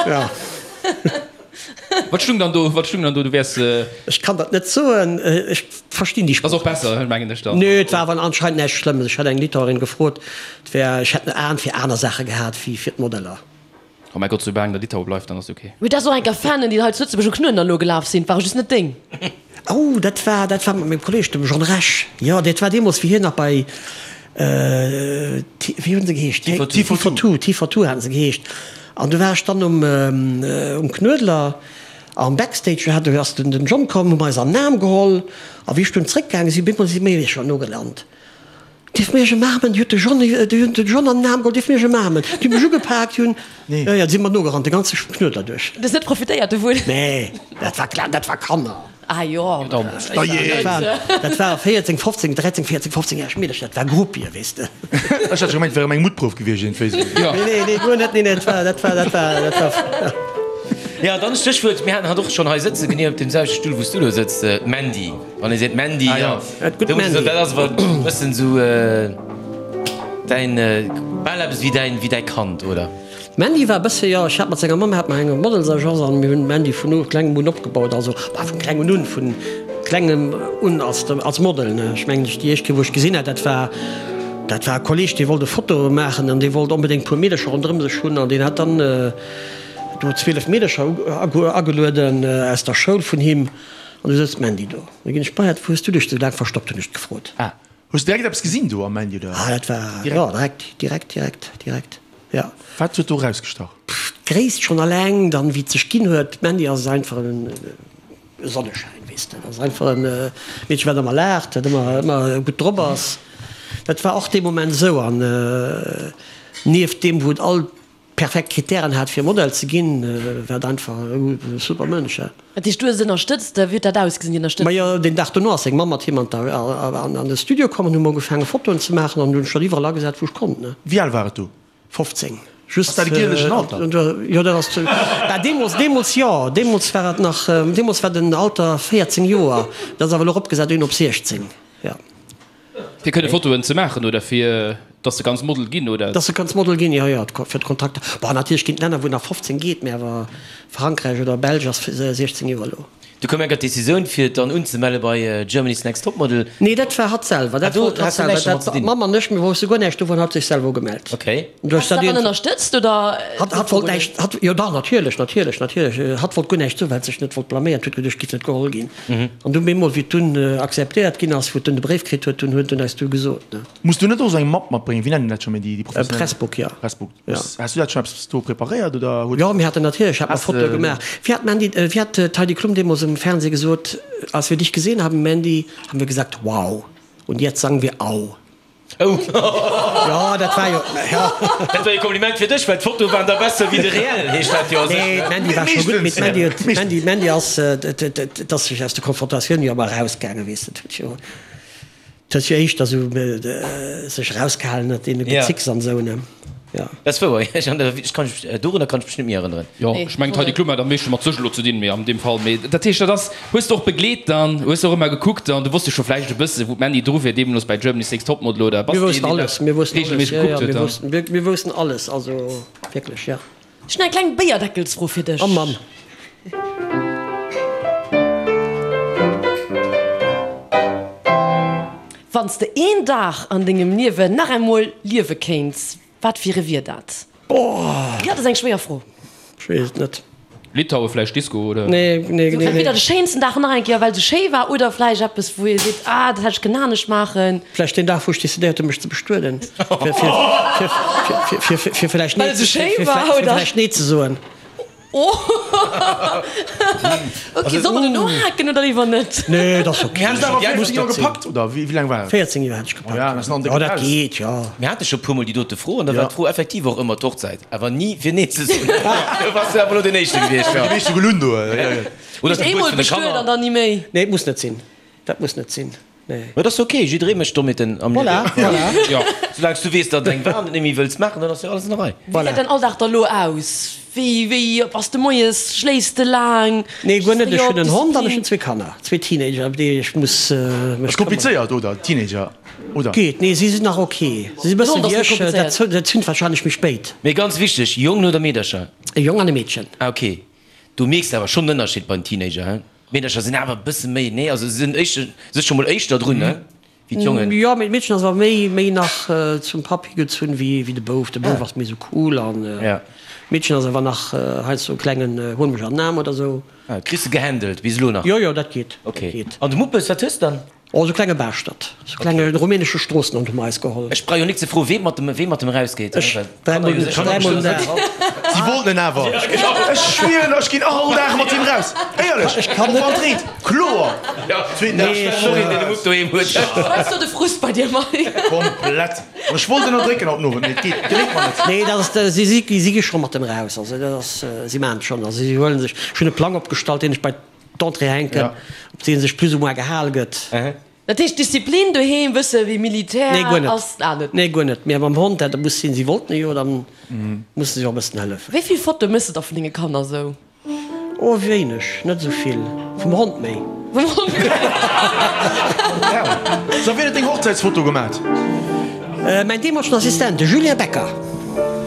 Jo. Wat stung dann do? Wat stung dann do? Du wäers. Ech kann dat net soen. Ech verstinn déi Sprooch. Ass och besser, mengen ech dann. Nee, et war awer anscheinend näischt Schlëmmes. Ech hat eng Litauerin gefrot, et wär, ech hätt en Aen fir aner Saache gehat wéi fir d'Modeller. Oh mäi Gott, soulaang der Litaue bleift, dann ass ok. Mee dat ass och eng Fanen, déi hei zu Lëtzebuerg um Knuedler elo gelaf sinn, ware just net deng. Oh, dat war, dat war mat mengem Kolleg, dem John Rech. Jo, dat war deemools, wéi hien nach bei, wéi hunn se geheescht? T42, T42 haten se geheescht. An du war ech dann um, um Knuedler am Backstage, do hat, do ass den John komm, hu mer eis an den Aarm geholl. A wéi ech dunn zréckgaange sinn, bemol si mir scho nogelant. Dierf mir iech ëmaarmen? Déi huet de John, déi hunn den John an den Aarm geholl, dierf mir iech ëmaarmen? Déi hu mech ugepaakt, déi hunn, jo, jo, déi si mer nogerannt, de ganze Knuedler duerch. Du hues net profitéiert dovun? Nee, dat war klar, dat war Kanner. Ah jo. Dat waren, dat ware 14, 15, 13, 14, 15 järeg Meedercher, dat war Groupie, weess de. Ech hat scho gemengt, et wär erëm eng Muttprouf gewiescht, iergendwéi esou. Nee, nee, nee, guer net, nee, nee, dat war, dat war, dat war, dat war. Jo, dann Stéchwuert, mir haten hatt och schonn hei sëtzen, genee op deem selwechte Stull, wou s du elo sëtz, d'Mandy. Wann ee seet Mandy, Ah, ja. da muss ee soen, dat ass awer e bëssen esou däin, bal eppes wéi däin, wéi däi Kand, oder? D'Mandy war e bësse, jo, ech hat mat senger Mamm hat mer eng Modelsagence an mir hunn d'Mandy vun u klengem un opgebaut, also, bah, vun klengem un, vun klengem un als, als Model, ne. Ech mengen, déi éischt Kéier, wou ech gesinn hat, dat war, dat war e Kolleg, dee wollt e Foto maachen an dee wollt onbedéngt e puer Meedercher ronderëm sech hunn an deen hat dann do 12 Meedercher agelueden aus der Schoul vun him. An du souz d'Mandy do. Du ginn ech bei hat. Wou hues du dech sou laang verstoppt, hunn ech gefrot. Ah, hues du direkt eppes gesinn do am Mandy oder? Ah, dat war, jo, direkt, direkt, direkt, direkt, jo. Wat huet do erausgestach? Pff, d'Gréisst schonn alleng, dann wéi et sech ginn huet. D'Mandy ass einfach en Sonneschäin, weess de. Dat ass einfach e Meedchen, wat ëmmer laacht, wat ëmmer, ëmmer gutt drop ass. Dat war och dee Moment esou. An nieft deem, wou et all perfekt Kritären hat fir Model ze ginn, war et einfach e super Mënsch. Dat heescht du hues et ënnerstëtzt? Wéi huet dat ausgesinn, déi Ënnerstëtzung? Majo, deen Dag dono ass seng Mamm mat him an de Studio komm an hu mer ugefaange Fotoen ze maachen an hunn ech dat iwwerall agesat wou ech konnt. Wéi al war et do? 15. Just. Ass dat e gielegen Alter? Jo, dat ass, bah deemools, deemools jo, deemools war et nach, deemools war den Alter 14 Joer, dat ass awer elo eropgesat ginn op 16, jo. Fir kënne Fotoen ze maachen oder fir dass de kanns Model ginn oder? Dass de kanns Model ginn, jo, jo, fir d'Kontakter. Bon, natierlech ginn et Länner, wou nach 15 geet, mee awer Frankräich oder Belsch ass 16 Joer elo. Du koum enker d'Decisioun fir et dann unzemelle bei Germany's Next Topmodel. Nee, dat war hatt selwer. Dat wollt hatt selwer. Dat d'Mamm an ech, mir wousste guer näischt dovun, hatt sech selwer ugemellt. Okay. Has de dat dann ënnerstëtzt oder? Hatt, hatt wollt näischt, hatt, jo dach, natierlech, natierlech, natierlech. Hatt wollt guer näischt soen, well et sech net wollt blaméieren. Huet geduecht, et giff net geholl ginn. An dunn bemol, wéi et dunn akzeptéiert ginn ass, wou et dunn de Bréif kritt huet, dunn huet en eis du gesot, ne. Muss du net och esou eng Mapp matbréngen? Wéi nennen dat scho méi déi professionell? Pressbook, jo. Pressbook. Ja. Has du dat schonn eppes do preparéiert oder huet? Jo, mir haten natierlech, hat mer Fotoe gemaach. Wéi hat d'Mandy, wéi hat d'Heidi Klum deemools um Fernseh gesot, Als wir dich gesehen haben, Mandy, haben wir gesagt, wow, und jetzt sagen wir au. Oh. Jo, dat war jo, jo. Dat war e Kompliment fir dech, well d'Fotoe waren da besser wéi de Reell, heescht dat jo a sech. Nee, d'Mandy war scho gutt, mee d'Mandy huet, d'Mandy, d'Mandy ass, et ass sech aus der Konfrontatioun jo ëmmer erausgaangen, weess de, et huet jo. Et huet jo éischter esou sech erausgehalen ënnert deene Gezicks an esou, ne? Jo. Dat ass wouer, ech kann mech, dorunner kann ech mech net méi erënneren. Jo, ech mengen d'Heidi Klum hat am meeschte mat sech elo ze dinn, mee an deem Fall, mee dat heescht, dat ass, hues de och begleet dann, hues de och ëmmer gekuckt an du wosst jo scho vläicht e bësse wou d'Mandy dru wier deemools bei Germany's Next Topmodel oder bass de een, deen dat reegelméisseg gekuckt huet dann? Mir woussten alles, also wierklech, jo. Ech hunn eng kleng Béierdeckelsfro fir dech. Oh Mann. Wann s de een Dag an dengem Liewen nach emol liewe kéints, wat fir e wier dat? Oh. Jo, dat ass eng schwéier Fro. Ech weess et net. Litaue vläicht Disco oder? Nee, nee, nee. Entweder de schéinsten Dag nach eng Kéier, well se schéi war, oder vläicht eppes, wou ee seet, ah, dat hätt ech kënnen anescht maachen. Vläicht deen Dag, wou ech decidéiert hunn, mech ze bestueden, fir, fir, fir, fir, fir, fir vläicht nee, Well se schéi fir, war, fir oder? vläicht nee ze soen. Oh! Ok, soll mer do nohaken oder léiwer net? Nee, dat ass ok. Mir haten awer Muss 14 Joer dat sinn. gepackt, oder wéi laang war et? 14 Joer hat ech gepackt, Oh ja, dat ass nach en jo. décke Dat Paus. geet, jo. Mir hate scho puermol déi dote Fro an da war d'Fro effektiv och ëmmer d'Hochzäit. Awer ni fir nee ze soen. Du bass jo awer elo deen Éischte gewiescht, jo. Déi meescht hu gelunn do. Oder Eemol d'Gebuert vun de bestuet Kanner. an dann ni méi. Nee, et muss net sinn. Dat muss net sinn, nee. Mä et ass ok, jidderee mécht Dommheeten am Liewen. Voilà, voilà. Jo, soulaang s du weess, datt et eng war an et net méi wëlls maachen, dann ass jo alles an der Rei. Wéi gesäit däin Alldag da lo aus? Wéi, wéi bass de moies? Schléifs de laang? Nee, guer net. Ech hunn en Hond an ech hunn zwee Kanner, zwee Teenager, ëm déi ech muss mech këmmeren. Ass komplizéiert, oder? Teenager, oder? Geet, nee, si sinn nach ok. Si sinn e bësse wéi ech, dat, dat zünt warscheinlech méi spéit. Mee ganz wichteg, Jongen oder Meedercher? E Jong an e Meedchen. Ah, ok. Du mierks awer schonn en Ënnerscheed bei den Teenager, he? D'Meedercher sinn awer e bësse méi, nee, also se sinn éischter, sech scho mol éischter drun, ne, wéi d'Jongen. Jo, mee d'Meedchen ass awer méi, méi nach zum Papp higezunn wéi, wéi de Bouf. De Bouf ass méi sou cool an d'Meedchen ass awer nach heiansdo e klengen Huel mech an den Aarm oder sou. Ah, kriss de gehandelt bis elo nach? Jo, jo, dat geet, Ok. dat geet. An de Muppes, wat hues de dann? Oh, sou klenge Baaschtert, sou klenge rumänesche Stroossenhond hu mer eis geholl. Ech brauch jo nik ze froen, wee mat dem, wee mat dem erausgeet. Ech, dräimol, dräimol den Dag. Si wollten en awer. Ech schwieren, ech ginn all Dag mat him raus. Éierlech, Ech kann net. Och wann et reent, kloer. Zweeten Dag. Nee, ech, deen de Mupp doheem huet. Wat ass do de Frust bei dir, Mike? Komplett. An ech wollt ënnerdrécken haut den Owend, mee et geet, geléngt mer net. Nee, dat ass, si, si, si gi scho mat dem raus. Also dat ass, si maachen et schonn. Also si huele sech, ech hunn e Plang opgestallt, deen ech bei. D'Entrée hänken, op dee sech plus ou moins gehal gëtt. Dat heescht Disziplin doheem, bësse wéi Militär Nee, guer net. ass ah net. Nee, guer net. Mee mam Hond, dat muss sinn. Si wollten e jo, dann musse si och e bëssen hëllefen. Wéi vill Fotoe méchs de da vun denge Kanner sou? Oh, wéineg, net esou vill. Vum Hond méi. Vum Hond méi. So, wien huet deng Hochzäitsfoto gemat? Mäin deemolegen Assistent, de Julien Becker.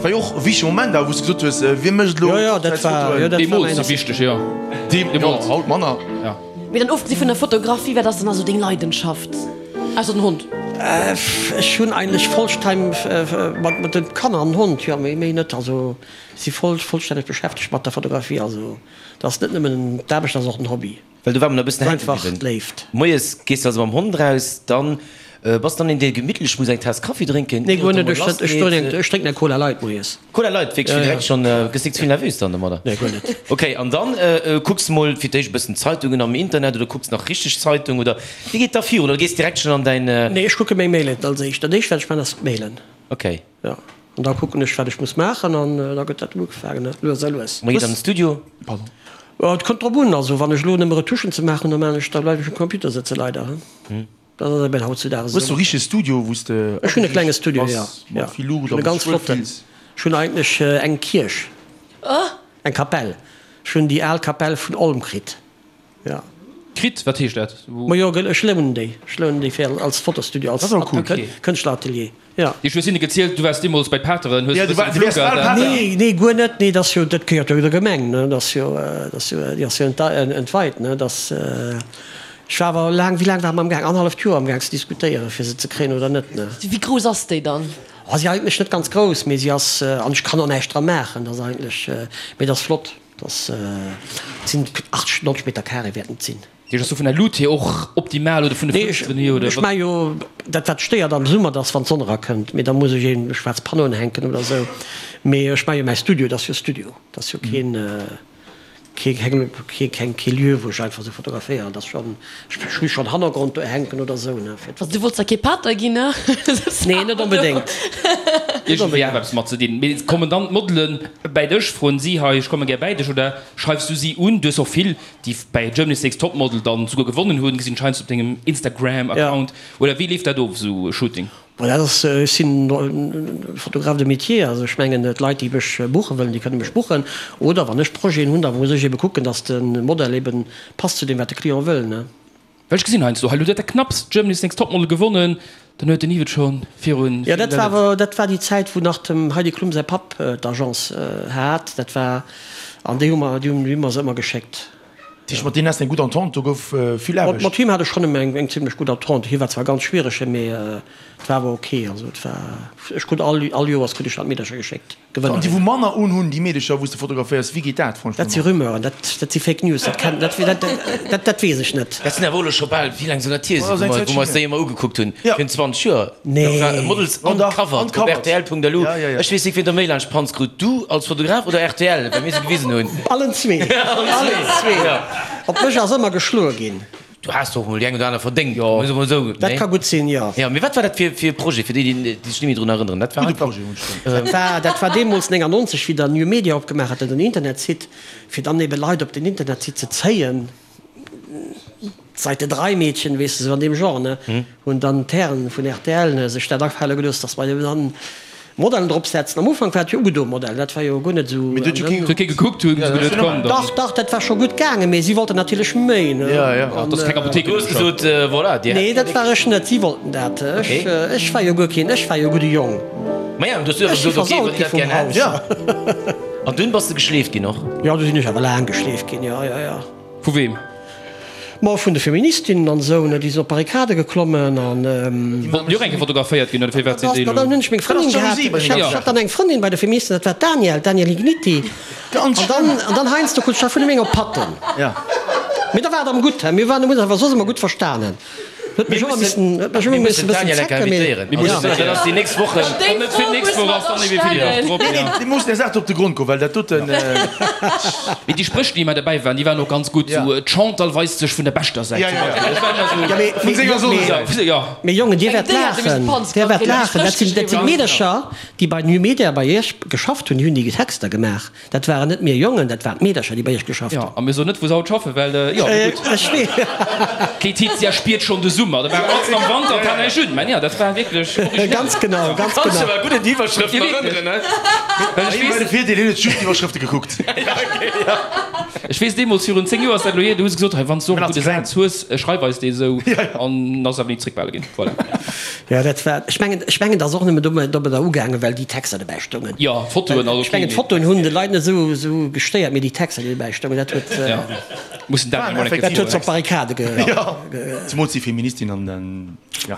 War jo och e wichtege Moment awer, wou s de gesot hues, wie mécht elo Jo, jo, dat war, jo, dat war Deemools mäin sou wichteg, jo. Deemools, haut manner. Jo. Mee dann ofgesi vun der Fotografie, wat ass dann also deng Leidenschaft, ausser den Hond? Ech hunn eigentlech vollsteim mat de Kanner an den Hond, jo, méi, méi net. Also si voll, vollstänneg beschäftegt mat der Fotografie. Also dat ass net nëmmen d'Aarbecht, dat ass och den Hobby. Well do war mer nach e bëssen hänke Einfach bliwwen. d'Léift. Moies gees de also mam Hond raus, dann bass dann een dee gemittlech muss eng Taass Kaffi drénken, Nee, ier guer et net. emol Ech lass ech geet. ech drénken eng Cola Light moies. Cola Light, wierklech, Ja, fir ja. direkt schonn, gëss nik ze vill nervös dann domadder? Nee, guer net. Ok, an dann kucks mol fir d'éischt e bëssen Zeitungen am Internet oder kucks nach richteg Zeitung oder wéi geet da virun? Oder gees direkt schonn an däin. Nee, ech kucke meng Mailen als éischt. Dat éischt wat ech man ass d'Mailen. Ok. Jo, an da kucken ech, wat ech muss maachen an da gëtt dat ugefaangen, lues a lues. Mä geet an den Studio? Pardon. Jo, et kënnt drop un. Also wann ech elo nëmme Retuschen ze maachen hunn, da maachen ech, da bleiwen ech um Computer sëtzen, leider. Dat ass eben hautzudags Hues du esou. e richtege Studio, wou s de Ech hunn e klenge Studio, jo, bass, jo. mat vill Luucht Ech hunn a e wou s ganz du dech wuel flotten. fills? Ech hunn eigentlech eng Kierch, eng Kapell. Ech hunn déi al Kapell vun Olm kritt, jo. Kritt, wat heescht dat? Majo, ech lounen déi. Ech lounen déi fir als Fotostudio, als Kënschtleratelier. Jo. Ech hues hinne gezielt, du waars deemools bei d'Pateren, hues e bësse geflunkert. Nee, nee, guer net. Nee, dat ass jo, dat gehéiert jo der Gemeng, ne? Dat ass jo, dat ass jo, déi ass jo entweit, ne? Dat ass, ech war awer laang, wéi laang ware mer amgaang? Annerhalleft Joer amgaang ze diskutéieren, fir se ze kréien oder net, ne? Wéi grouss ass déi dann? Oh, si eigentlech net ganz grouss, mee si ass, an ech kann och näischt dra maachen, dat ass eigentlech, mee dat ass flott, dat ass, et sinn 80, 90 Meter carré wäerten et sinn. Déi ass do vun der Luut hier och optimal oder vun de Fënsteren hier oder wat? Ech maache jo dat wat stéiert am Summer, dat ass wann d'Sonn erakënnt, mee da muss ech een schwaarz Panneauen hänken oder esou, mee ech maache jo mäi Studio, dat ass jo Studio, dat ass jo keen kee keng kee Lieu wou ech einfach esou fotograféieren, dat ass schonn, ech hu schonn Hannergrond do hänken oder esou ne fir. Also du wollts da kee Pater ginn ne? Nee net onbedéngt. Iergendwéi awer eppes mat ze dinn. Mee kommen dann d'Modelen bäi dech, froen si hei ech komme gär bäi dech oder schreifs du si un? Du hues och vill déi bäi Germany's Next Topmodel dann souguer gewonnen hunn, gesinn scheinst op dengem Instagram Account, oder wéi leeft dat of esou e Shooting? Bon dat ass, ech sinn Photographe de métier, also ech mengen d'Leit déi mech buche wëllen, déi kënne mech buchen, oder wann ech Projeten hunn, da muss ech ebe kucken, datt de Modell eben passt zu deem wat de Client wëll ne. Well ech gesinn heiansdo, hei elo huet der knapps Germany's Next Topmodel gewonnen, dann huet den Yves et scho virun. Jo, dat war awer, dat war déi Zäit, wou nach dem Heidi Klum säi Papp d'Agence hat. Dat war, an déi hu mer, déi hunn mer se ëmmer geschéckt. Dat heescht, mat deenen has de eng gutt Entente, do gouf vill Aarbecht. Mat him hat ech schonn ëmmer eng zimlech gutt Entente. Hie war zwar ganz schwierege, mee et war awer ok. Also et war, ech krut all, all Joers krut ech dann d'Meedercher geschéckt. An déi wou manner unhunn, déi Meedecher wou s de fotograféiers, wéi geet dat franchement? Dat si Rumeuren, dat si Fake News, dat kennt, dat, dat, dat weess ech net. Dat sinn awer elo scho bal, wéi laang soll dat hier sinn, wou mer, wou mer eis déi ëmmer ugekuckt hunn, virun 20 Joer? Nee. Dat war Models Uncovered op rtl.lu. Ech weess nik, wien der méi laanscht d'Panz krut, du als Fotograf oder rtl, well mir se gewisen hunn. Allen zwee, allen zwee. Op mech ass ëmmer geschloe ginn. Du has och mol déi eng oder aner verdéngt, muss ech mol soen. Dat ka gutt sinn, jo. Jo, mee wat war dat fir fir e Projet, fir déi, déi sech net méi drun erënneren? Dat war einfach. Dat war, dat war deemools 99, wéi dann New Media opgemaach hat, den Internetsite, fir dann ebe Leit op den Internetsite ze zéien, d'Seite 3 Meedchen, weess de, sou an deem Genre, ne, hunn dann d'Hären vun rtl sech dat afale gelooss, dass mer eben dann Modellen drop setzen. Am Ufank war et jo ugedo Modell, dat war jo guer net esou. Mee do huet jo kee. Huet kee gekuckt, hunn se geduet, komm dann. Dach, dach, dat war scho gutt gaangen, mee si wollten natierlech méi, ne. Ja, ja. An dat ass keng Apothéik. Du hues gesot, voilà, dir. Nee, dat war ech net, si wollten dat. Ech, ech war jo guer keen, ech war jo e gudde Jong. Maja, du hues du einfach gesot, ok, wann dir dat gär hätt. Ja. An dunn bass de geschleeft ginn och? Jo, du sinn ech awer laang geschleeft ginn, jo, jo, jo. Vu weem? Ma vun de Feministinnen an esou, ne, déi sinn op d'Barrikade geklommen an. Déi wollten jo och eng Kéier fotograféiert ginn, oder firwat sinn déi elo. Dann hunn ech meng Frëndin gehat, ech hat dann eng Frëndin bei de Feministen, dat war d'Danièle, d'Danièle Igniti. An dann, an dann heiansdo krut ech da vun him eng op d'Patten. Mee da war et am gutt, he, mir waren, hunn eis awer soss ëmmer gutt verstanen. Huet mech ëmmer missen, huet mech ëmmer missen e bëssen zecken, mee. Mir mussen dat ass déi nächst Wochen. Wann net fir d'nächst Woch ass, dann ewéi fir déi Woch drop, ja. Mir mussen der Saach do op de Grond goen, well dat doten. Mee déi Spréch, déi ëmmer derbäi waren, déi waren och ganz gutt. Sou, d'Chantal weist sech vun der beschter Säit, zum Beispill. Dat war ëmmer sou. Ja, mee, Vun senger Sonnensäit, ja. Mee Jongen, Dir wäert laachen, Dir wäert laachen, dat sinn, dat sinn Meedercher, déi bei New Media bei Iech geschafft hunn, déi hunn déi Texter gemaach. Dat waren net mir Jongen, dat waren d'Meedercher, déi bei iech geschafft hunn. Jo, a mir soen net, wou se haut schaffen, well, jo, mee gutt. Ech wee. D'Laetitia spiert schonn de Summer. Da war alles am Wanter, et hat näischt un. Mä jo, dat war wierklech originell. Ganz genau, ganz genau. Kanns dech awer gutt un déi Iwwerschrëften erënneren, ne? Well ech weess. De Virdeel, hien huet just d'Iwwerschrëfte gekuckt. Ech weess, deemools, virun 10 Joer ass dat elo hier, du hues gesot, hei, wann s du och e gudde Saz hues, schreif eis dee sou. An ass awer ni zréckbehale ginn. Voilà. Jo, dat war, ech mengen, ech mengen, dat ass och nëmmen domadder ugaangen, well déi Texter dobäi stoungen. Jo, d'Fotoen, also Ech mengen, d'Fotoen hunn de Leit net esou, esou gestéiert, mee déi Texter, déi dobäi stoungen, dat huet, Jo, mussen dat emol eng Kéier dat huet se op d'Barrikade ge. Jo, zemools déi Feministin an den, jo.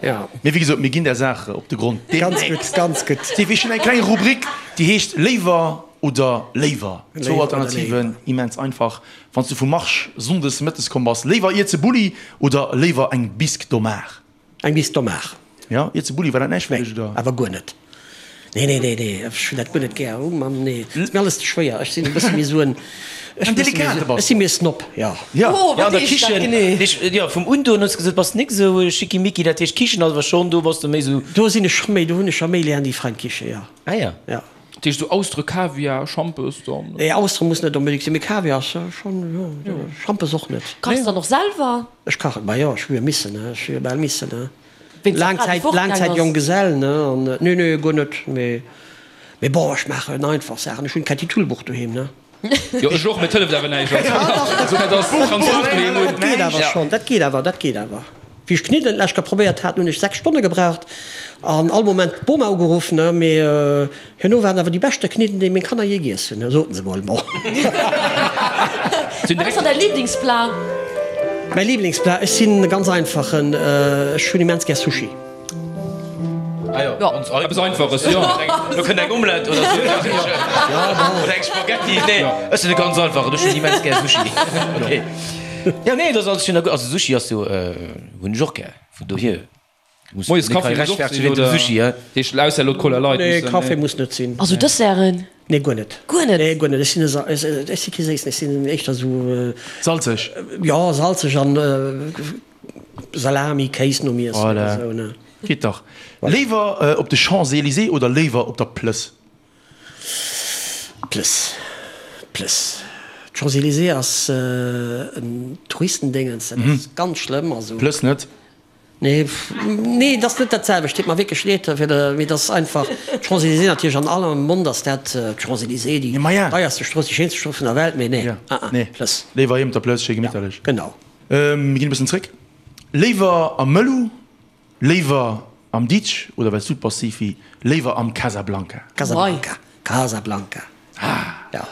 Jo. Mee wéi gesot, mir ginn der Saach op de Grond Ganz gutt, ganz gutt. Steve, ech hunn eng kleng Rubrik, déi heescht Léiwer oder léiwer. Zwou Alternativen, immens einfach. Wann s du vu Marche sonndes mëttes komm bass, léiwer Ierze Bulli oder léiwer eng Bisque d'Homard? Eng Bisque d'Homard. Jo, Ierze Bulli, war dat näischt fir dech, oder? Nee, awer guer net. Nee, nee, nee, nee, ech hunn dat guer net gär. Oh Mann, nee, ass mir alles ze schwéier. Ech sinn e bësse méi esou en, ech En delikate bass Ech si méi e Snob, jo. Jo. Oh, Ja, wat an der heescht dat Kichen, genee? jo, vum Undoen hues de gesot, bass nik esou schickimicki, dat heescht Kichen ass awer schonn, do bass de méi esou. Do sinn ech scho méi, do hunn ech scho méi gär déi fein Kiche, jo. Ah ja. Jo. Dat heescht esou Austere, Kaviar, Schampes dann? Nee, Austere muss net onbedéngt sinn, mee Kaviar ass schonn, jo, Schampes och net. Kachs dann och selwer? Ech kachen, ma jo, ech hu jo missen, ne, ech hu jo bal missen, ne. Wéinst der Laang Fra, déi Zäit, fortgaang laang Zäit ass? Jonggesell, ne, an nee, nee, guer net, mee, mee bon, ech maachen einfach Saachen. Ech hunn d'Kätti Tulbuch doheem, ne. Jo, ech och, mee et hëlleft awer näischt. Also, dat ass ganz gutt doheem un. Dat geet awer schonn, dat geet awer, dat geet awer. Wéi ech d'Kniddelen d'lescht Kéier probéiert hat, hunn ech 6 Stonne gebraucht an all Moment d'Boma ugeruff, ne, mee herno waren awer déi beschte Kniddelen, déi meng Kanner jee giess hunn, soten se mol. Bon. Wat ass dann däi Liblingsplat? Mäi Liblingsplat? Ech sinn e ganz einfachen, ech hunn immens gär Sushi. Ah jo, ganz einfach. Eppes Einfaches, jo. Do kënnt eng Omelette oder sou. Oder eng Spaghetti. Nee, ech sinn e ganz einfachen, ech hunn immens gär Sushi. Okay. Jo, nee, dat ass alles schön a gutt. Also Sushi ass jo, hunn ech och gär, vun dohier muss Moies Kaffi muss och sinn, oder? Sushi, hä? Heescht ausser elo d'Cola Light Nee, Kaffi muss net sinn. Also Desserten? Nee, guer net. Guer net? Nee, guer net. Ech sinn e, ech si kee Séissen, ech sinn éischter sou. Salzeg? Jo, salzeg an Salami, Kéis nom Iessen oder sou, ne? Geet dach. Léiwer op de Champs-Élysées oder léiwer op der Plëss? Plëss, Plëss. D'Champs-Élysées ass en Touristendéngens, dat ass ganz schlëmm. Also. Plëss net? Nee, nee, et ass net dat selwecht. Deet mer wierklech leed fir de, mee et ass einfach d'Champs-Élysées natierlech an aller Mond ass dat d'Champs-Élysées, déi deierste Strooss, déi schéinste Strooss vun der Welt, mee nee, ah ah, Plëss. Léiwer heem op der Plëss, schéi gemitterlech. Genau. Mir ginn e bëssen zréck. Léiwer am Mëllu, léiwer am Ditsch oder well s du et bass, Sifi, léiwer am Casablanca? Casablanca, Casablanca, jo.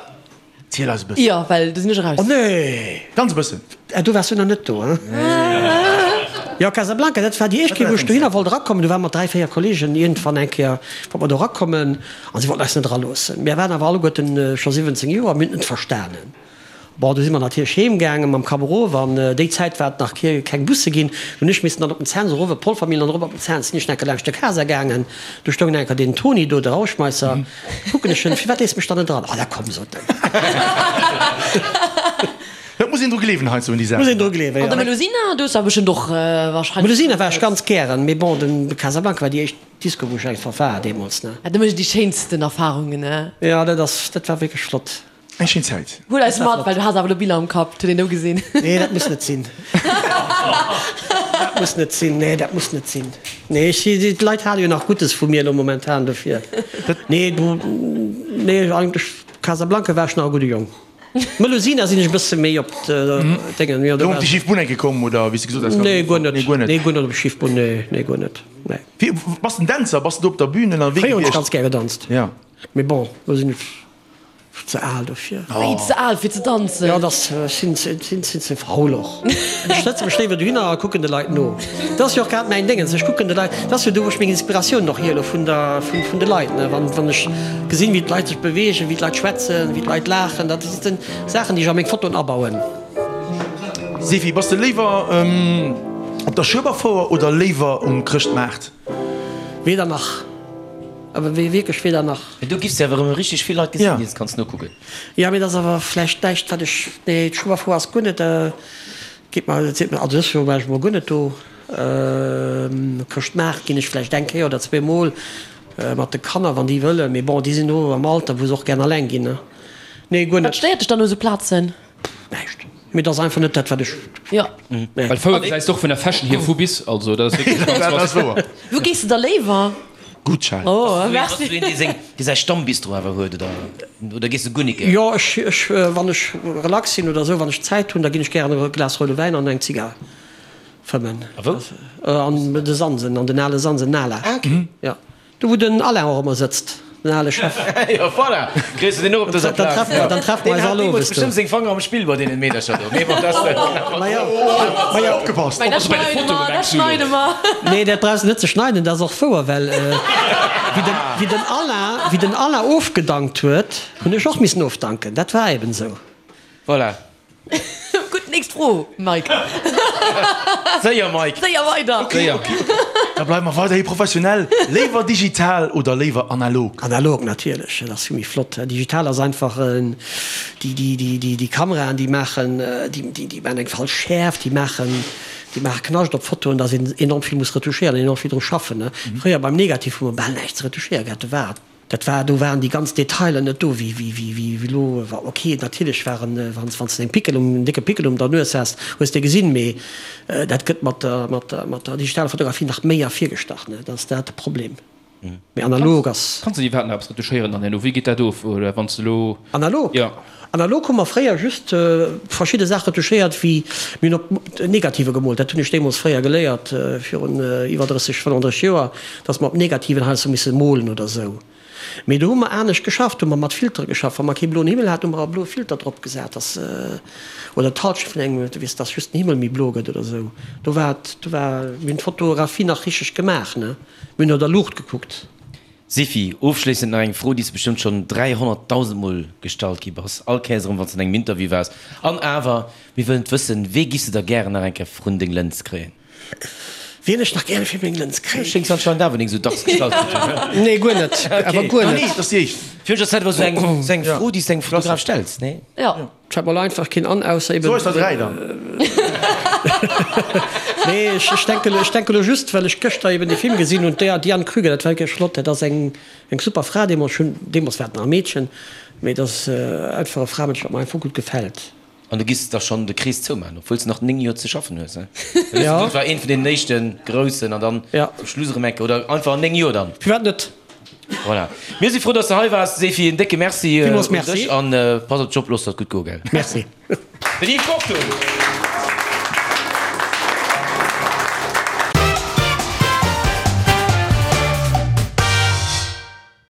Ziel eis e bëssen. Jo, well do sinn ech eraus. Oh nee! Ganz e bëssen. Ah, do waars du nach net do, hein? Jo, Casablanca, dat war déi éischt Kéier, wou ech dohinner wollt erakommen. Do ware mer 3, 4 Kollegen iergendwann eng Kéier, wollte mer do erakommen a si wollten eis net eraloossen. Mir waren awer alleguerten scho 17 Joer, mir hunn et net verstanen. Bon, du si mer natierlech heem gaangen mam Kapp erof an déi Zäit war et nach keng Busse ginn. Du hunn ech missen dann op den Cents erof, op d'Polvermillen an erop op den Cents. Sinn ech enker laanscht de Casa gaangen, du stoung enker deen Toni do, de Rauschmeisser. Kucken ech en, Firwat léiss mech dann net eran? Ah, da komm, sot en. Et muss een dru gleewen heiansdo un déi Saachen. Muss een dru gleewen, jo. An der Melusina, du hues awer bestëmmt och wahrscheinlech. Melusina war ech ganz gären, mee bon, den Casablanca war déi éischt Disco, wou ech einfach war deemools, ne. Ja, do mécht een déi schéinsten Erfahrungen, ne? Jo, dat ass, dat war wierklech flott. Eng schéin Zäit. Huel eis mat, well du has awer elo Biller am Kapp, huet een do gesinn. Nee, dat muss net sinn. Dat muss net sinn. Nee, dat muss net sinn. Nee, ech, d'Leit hale jo nach Guddes vu mir elo momentan, dofir. Nee, do, nee, eigentlech Casablanca war ech nach e gudde Jong. Melusina sinn ech e bësse méi op d'Déngen, jo, do Do op déi schif Bunn enke komm, oder wéi s de gesot has? Nee, guer net. Nee, guer net. Nee, guer net op déi schif Bunn, nee, nee, guer net, nee. Wéi, bass de en Dänzer? Bass de do op der Bühn ënnerwee Fréier hunn ech ganz gär gedanzt. Ja. Mee bon, elo sinn ech. Ze al dofir. Wéi, ze al fir ze danzen? Jo, dass sinn sinn ze faul och. Ech sëtze mech léiwer dohinner a kucken de Leit no. Dat ass jo och grad mäin Déngens, ech kucken de Leit, dat ass jo do wou ech meng Inspiratioun och hiele vun der vun de Leit, ne. Wann wann ech gesinn, wéi d'Leit sech beweegen, wéi d'Leit schwätzen, wéi d'Leit laachen, dat sinn Saachen, déi ech a meng Fotoen abauen. Sefi, bass de léiwer op der Schueberfouer oder léiwer um Chrëschtmaart? Weder nach. Awer wéi wierklech weder nach. Mee do giffs de awer erëm richteg vill Leit gesinn, déi s kanns nokucken. Jo, mee dat ass awer vläicht näischt wat ech, nee, d'Schueberfouer ass guer net, geet mer, seet mer, also dës Joer war ech emol guer net do. Chrëschtmaart ginn ech vläicht eng Kéier oder zweemol mat de Kanner, wann déi wëllen, mee bon, déi sinn elo am Alter, wou se och gären alleng ginn, ne. Nee, guer net. Wat stéiert dech dann u sou Plazen? Näischt. Mee et ass einfach net dat, wat ech. Jo. Nee. Well Fouer gesäis de och vun der Fashion hier vu bis, also dat ass wierklech ganz Dat ass wouer. Wou gees de da léiwer? Gutt, Charel. Oh, merci. Bass du een, dee seng, dee säi Stammbistro awer huet, oder, oder gees de guer nik? Jo, ech, ech, wann ech relax sinn oder esou, wann ech Zäit hunn, da ginn ech gären e Glas roude Wäin an eng Zigar fëmmen. A wou? An de Sansen, an den ale Sansen, Nala. Ah, okay. Jo. Do wou den Alain och ëmmer sëtzt, den ale Chef. Jo voilà, kriss de deen och op dëser Plaz. Dann treffe mer eis all owes do. Deen hat deemools bestëmmt seng Fanger am Spill bei deenen Meedercher do. Mee bon, dat ass. Majo, majo. Opgepasst! Dat schneide mer, dat schneide mer. Nee, dat brauchs de net ze schneiden, dat ass och wouer, well wéi den Alain, wéi den Alain ofgedankt huet, hunn ech och missen ofdanken. Dat war eben esou. Voilà. Gutt, nächst Fro, Mike. Séier, Mike. Séier weider. Ok, ok. Da bleiwe mer weiderhi professionell. Léiwer digital oder léiwer analog? Analog natierlech, dat ass vill méi flott. Digital ass einfach, déi, déi, déi, déi, déi Kameraen, déi maachen, déi, déi, déi maachen eng falsch Schäerft, déi maachen, déi maache Knascht op Fotoen, dass een enorm vill muss retouchéieren, enorm vill dru schaffen. Fréier beim Negativ hu mer bal näischt ze retouchéiere gehat, do war Dat war, do waren déi ganz Detailer net do wéi, wéi, wéi, wéi elo. Ok, natierlech waren, wann s, wann s de eng Pickel um, en décke Pickel um der Nues has, hues de gesinn, mee dat gëtt mat der, mat der, mat der digitaler Fotografie nach méi ervirgestach, ne? Dat ass dat de Problem. Mee analog ass. Kanns de iwwerhaapt nach eppes retuschéieren dann herno? Wéi geet dat of? Oder wann s de elo. Analog? Jo. Analog hu mer fréier just verschidde Saache retuschéiert, wéi mir hunn op Negative gemoolt. Dat hunn ech deemools fréier geléiert, virun iwwer 30, 35 Joer, datt mer op Negativen heiansdo misse molen oder esou. Mee do hu mer anescht geschafft, do hu mer mat Filtere geschafft. Wa mer kee bloen Himmel haten, hu mer e bloe Filter drop gesat, dass, oder d'Halschent vun engem, du weess, dass just den Himmel méi blo gëtt oder esou. Do war et, do war, mir hunn d'Fotografie nach richteg gemaach, ne? Mir hunn no der Luucht gekuckt. Sifi, ofschléissend nach eng Fro, déi s de bestëmmt schonn 300.000 Mol gestallt gi bass, all Kéiers erëm, wann s de an engem Interview waars. An awer, mir wëllen et wëssen, Wee giffs de da gären nach eng Kéier vrun deng Lëns kréien? Wien ech nach gäre fir meng Lëns kréien. Schéngs anscheinend awer ning sou dacks gestallt ze ginn. Nee, guer net. Awer guer net. Nee, dat ass déi éischt. Fir mech ass dat awer sou eng, sou eng Fro, déi s de engem Fotograf stells, nee? Jo. Fällt mer elo einfach keen an, ausser eben. Sou eis der 3 dann. Nee, ech, ech denken, ech denken elo just, well ech gëschter eben dee Film gesinn hunn, d'Diane Krüger, dat war wierklech flott, dat ass eng, eng super Fra deemools, ech hunn, deemools war et nach e Meedchen, mee dat ass einfach e Framënsch, wat mer einfach gutt gefält. An du giss da schonn de Krees zoumaachen, obwuel s de nach 9 Joer ze schaffen hues, he? Ja. Dat war eent vun deenen éischte groussen an dann zum Schluss erëm eng Kéier, oder einfach an 9 Joer dann? Firwat net? Voilà. Mir si frou, dass de hei waars, Sefi. En décke Merci un dech an pass op dech op, looss der et gutt goen, gell? Merci. Den Yves Kortum.